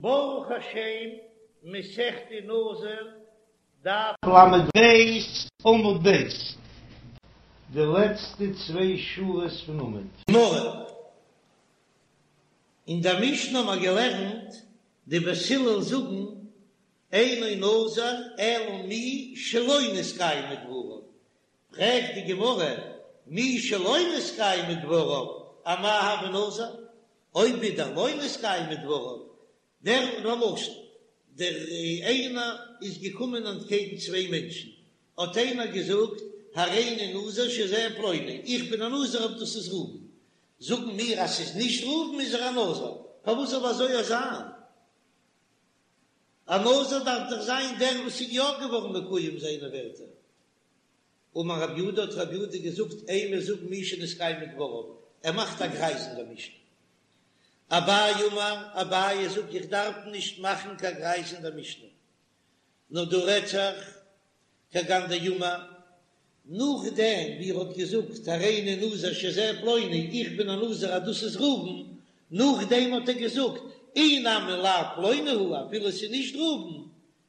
ברוך השם, מסכת נזיר, דף ל"ב, עמוד ב', די לעצטע צוויי שורות פון עמוד. גמרא, אין דער משנה האבן מיר געלערנט, די בית הלל זאגן, אינו נזיר אלא מי שלא נתקיימו דבריו, פרעגט די גמרא, מי שלא נתקיימו דבריו, אמאי הוי נזיר? אויב ווידער לא נתקיימו דבריו, דער למשל, דער איינער איז געקומען אנטקעגן צוויי מענטשן, האט איינער געזאגט, הריני נזיר שזה פלוני, איך בין א נזיר אויב דאס איז ראובן, זאגן מיר אז ס'איז נישט ראובן איז ער א נזיר, פארוואס זאל אזוי זיין? א נזיר דארף דאך זיין דער וואס איז יא געווארן מקוים זיינע ווערטער. אמר רב יהודה האט רב יהודה געזאגט אימא זאג מי שנתקיימו דבריו, ער מאכט א גרייז אין דער משנה. אביי אמר, אביי זאגט איך דארף נישט מאכן קיין גרייז אין דער משנה, נאר דא רעדט זיך כגון דאמר, נאכדעם ווי ער האט געזאגט הריני נזיר שזה פלוני, איך בין א נזיר אז דאס איז ראובן, נאכדעם האט ער געזאגט אי נמי לאו פלוני הוא, אפילו עס איז נישט ראובן,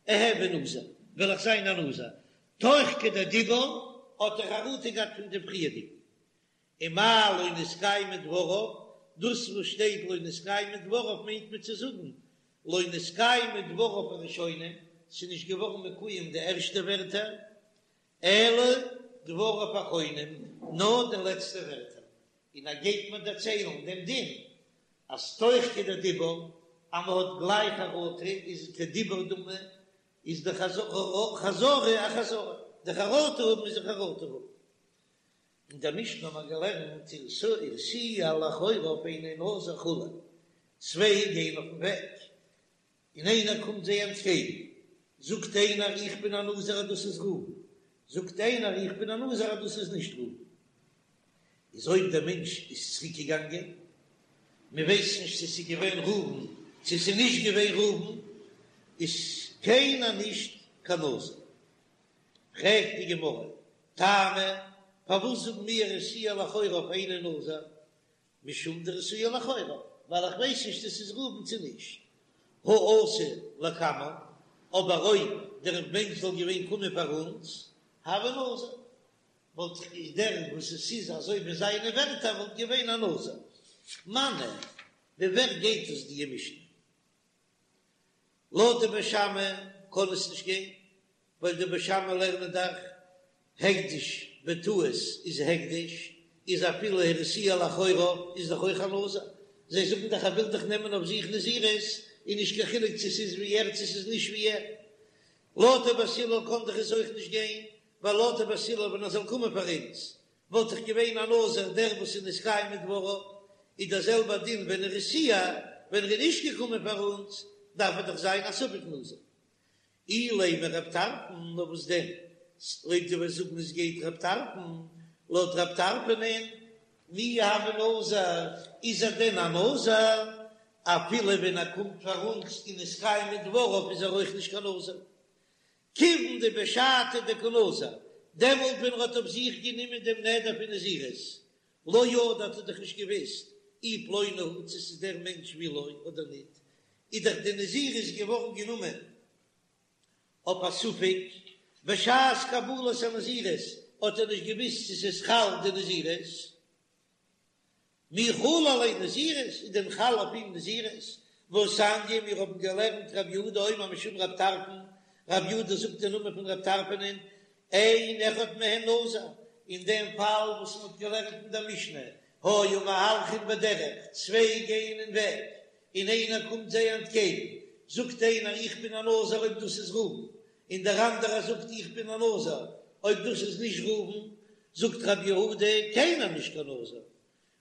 אהוי נזיר, וועל איך זיין א נזיר, תוך כדי דיבור האט ער חרטה געהאט פון דעם פריערדיגן, ומאי לא נתקיימו דבריו, דאס וואס שטייט לא נתקיימו דבריו מיינט מען צו זאגן לא נתקיימו דבריו הראשונים, ס'איז נישט געווארן מקוים די ערשטע ווערטער, אלא דבריו אחרונים, נאר די לעצטע ווערטער, און ער גייט מיר דערציילן דעם דין אז תוך כדי דיבור אז מ'האט גלייך חרטה איז כדיבור דמי, איז די חזרה א חזרה, די חרטה האבן איז א חרטה האבן. אין דער משנה האט מען געלערנט הרתיע לאחוריו אינו נזיר וכו', צוויי גייען אויפן וועג און איינער קומט זיי אנטקעגן, זאגט איינער איך בין א נזיר אז דאס איז ראובן, זאגט איינער איך בין א נזיר אז דאס איז נישט ראובן. איז אויב דער מענטש איז צוריק געגאנגען, מען ווייסט נישט צו ס'איז געווען ראובן צו ס'איז נישט געווען ראובן, איז קיינער נישט קיין נזיר. פרעגט די גמרא, טעמא, פארוואס זאגן מיר הרתיע לאחוריו אינו נזיר? משום דהרתיע לאחוריו, ווייל איך ווייס נישט צו ס'איז ראובן צו נישט. הא אתא לקמן, אבער אויב דער מענטש זאל געווען קומען פאר אונז, הוי נזיר. וואלט איך דער וואס עס איז אזוי ווי זיינע ווערטער וואלט געווען א נזיר. מני, ווי ווער גייט עס די משנה? לויט די בית שמאי קען עס נישט גיין, ווייל די בית שמאי לערנען דאך הקדש בטעות איז הקדש, איז אפילו הרתיע לאחוריו איז דאך אויך א נזיר, זיי זאגן דאך ער וויל דאך נעמען אויף זיך נזירות, איז נישט קיין חילוק צו ס'איז ווי ער צו ס'איז נישט ווי ער. לויט די בית הלל קען דאך עס אויך נישט גיין, ווייל לויט די בית הלל ווען ער זאל קומען פאר אונז וואלט דאך געווען א נזיר דער וואס איז נתקיימו דבריו, איז דער זעלבער דין ווען הרתיע, ווען ער איז נישט געקומען פאר אונז דארף ער דאך זיין א ספק נזיר. אילימא רב טרפון, נאר וואס דען אויב דו וועסט זאגן עס גייט רב טרפון, לויט רב טרפון'ען מי הוי נזיר, איז ער דען א נזיר? אפילו ווען ער קומט פאר אונז און נתקיימו דבריו איז ער אויך נישט קיין נזיר. כיוון דבשעתא דקא נזר, דעמאלט ווען ער האט אויף זיך גענומען דעם נדר פון נזירות, לא ידע האט ער דאך נישט געוואוסט אי פלוני הוא צו ס'איז דער מענטש ואי לא אדער ניט, איז דאך די נזירות געווארן גענומען אויף א ספק, בשעת קבלת הנזירות האט ער נישט געוואוסט צו ס'איז חל די נזירות. מי חלה עליה נזירות, איז דען חל אויף אים נזירות? והתניא, מיר האבן געלערנט רב יהודה אומר משום רב טרפון, רב יהודה זאגט די נאמען פון רב טרפון'ען, אין אחד מהן נזיר, אין דעם פאל וואס מען האט געלערנט אין דער משנה, היו מהלכין בדרך, צוויי גייען אין וועג, און איינער קומט זיי אנטקעגן, זאגט איינער איך בין א נזיר אויב דאס איז ראובן, און דער אנדערער זאגט איך בין א נזיר אויב דאס איז נישט ראובן, זאגט רב יהודה קיינער נישט קיין נזיר,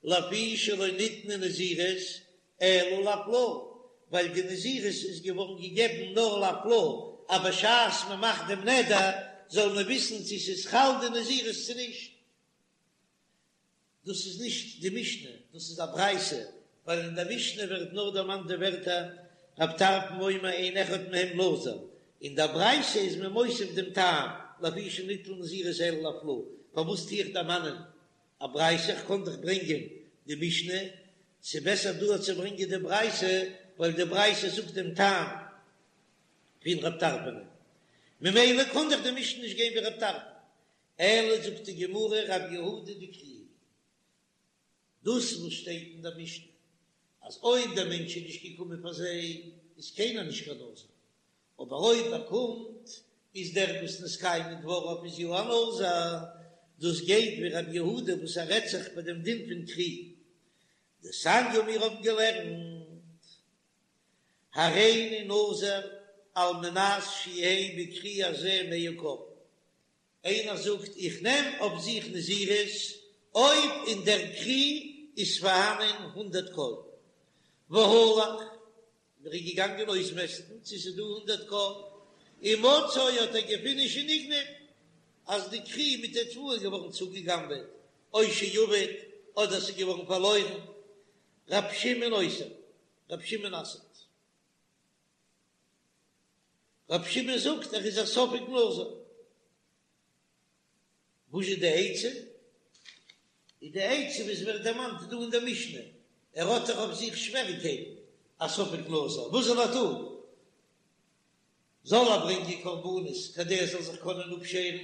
לפי שלא ניתנה נזירות אלא להפלאה, ווייל די נזירות איז געווארן געגעבן נאר להפלאה, אז בשעת מען מאכט דעם נדר זאל מען וויסן צו ס'איז חל די נזירות צו נישט. דאס איז נישט די משנה, דאס איז א ברייתא, ווייל אין דער משנה ווערט נאר דערמאנט די ווערטער רב טרפון אומר אין אחד מהם נזיר, אין דער ברייתא איז מען מוסיף דעם טעם לפי שלא ניתנה נזירות אלא להפלאה, פארוואס טו איך דערמאנען א ברייתא, איך קען דאך ברענגען די משנה, ס'איז בעסער דא צו ברענגען די ברייתא. ווייל די ברייתא זאגט דעם טעם פון רב טרפון, ממילא קען דאך די משנה נישט גיין ווי רב טרפון, אלא זאגט די גמרא רב יהודה דכרי, דאס וואס שטייט אין דער משנה אז אויב דער מענטש איז נישט געקומען פאר זיי איז קיינער נישט קיין נזיר, אבער אויב ער קומט איז דער וואס נתקיימו דבריו איז יא א נזיר, דאס גייט ווי רב יהודה וואס ער רעדט זיך ביי דעם דין פון כרי דתניא מיר האבן געלערנט הריני נזיר על מנת שיהא בכרי הזה מאה כור, איינער זאגט איך נעם אויף זיך נזירות אויב אין דער כרי איז פארהאנען הונדערט כור, והלך, ער איז געגאנגען אויסמעסטן צו ס'איז דא הונדערט כור, ומצאו האט ער געפונען שנגנב, אז די כרי מיט די תבואה איז געווארן צוגעגנבעט, או שאבד, אדער ס'איז געווארן פארלוירן, ר' שמעון אוסר, ר' שמעון אסר'ט. ר' שמעון זאגט ער איז א ספק נזיר. וואס איז די עצה? איז די עצה וואס ווערט דערמאנט דא אין דער משנה, ער האט דאך אויף זיך שוועריקייטן, א ספק נזיר, וואס זאל ער טון? זאל ער ברענגען קרבנות כדי ער זאל זיך קענען אפשערן?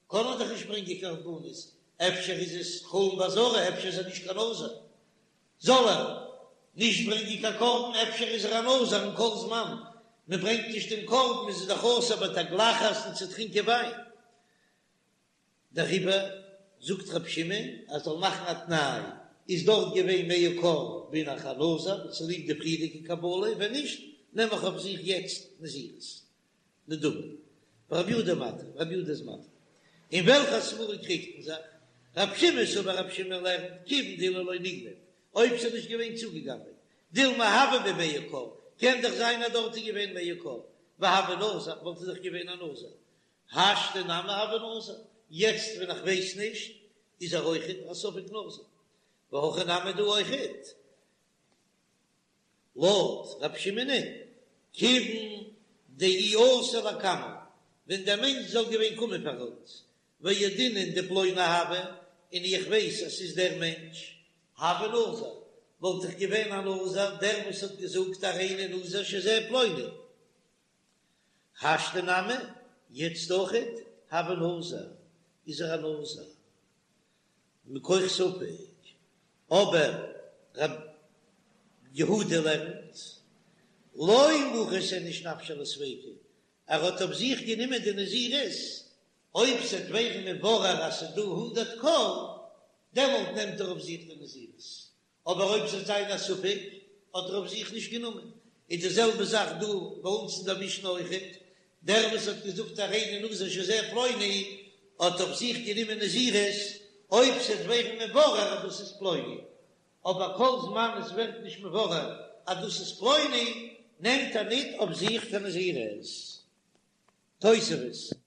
קען ער דאך נישט ברענגען קרבנות, אפשר איז עס חולין בעזרה, אפשר איז ער נישט קיין נזיר, זאל ער נישט ברענגען קיין קרבן, אפשר איז ער א נזיר און כל זמן מען ברענגט נישט דעם קרבן איז ער דאך אסור בתגלחת און צו טרינקען וויין, דעריבער זאגט רבי שמעון אז זאל מאכן א תנאי, איז דארט געווען מאה כור בין איך א נזיר צוליב די פריערדיגע קבלה, ווען נישט נעם איך אויף זיך יעצט נזירות. נדבה. רבי יהודה מתיר, רבי יהודה איז מתיר. אין וועלכע סברא קריגט מען זיך? רבי שמעון סבר רבי שמעון לערנט כיוון דאילו לא נגנב, אויב ס'איז נישט געווען צוגעגנבעט, דילמא הוה ביה מאה כור, קען דאך זיין אז דארט איז געווען מאה כור, והוה נזיר, וואלט ער דאך געווען א נזיר. השתא נמי הוה נזיר, יעצט ווען איך ווייס נישט, איז ער אויכעט א ספק נזיר. והכא נמי דא אויכעט. לויט רב שמעונ'ען, כיוון דאי אתא לקמן, ווען דער מענטש זאל געווען קומען פאר אונז, וידעינן דפלוני הוה, און איך ווייס אז ס'איז דער מענטש, הוה נזיר, וואלט איך געווען א נזיר, דער וואס האט געזאגט הריני נזיר שזה פלוני. השתא נמי, יעצט אויכעט, הוה נזיר, איז ער א נזיר. מכח ספק, אבער ר' יהודה לערנט, לא מחית איניש נפשיה לספיקא, ער האט אויף זיך גענומען די נזירות, אויב ס'וועט ווערן מבורר אז ס'איז דא הונדערט כור, דעמאלט נעמט ער אויף זיך די נזירות, אבער אויב ס'וועט זיין א ספק, האט ער אויף זיך נישט גענומען. איז די זעלבע זאך דא ביי אונז אין דער משנה אויכעט, דער וואס האט געזאגט הריני נזיר שזה פלוני, האט אויף זיך גענומען נזירות, אויב ס'וועט ווערן מבורר אז דאס איז פלוני, אבער כל זמן עס ווערט נישט מבורר אז דאס איז פלוני, נעמט ער ניט אויף זיך קיין נזירות. תוספות.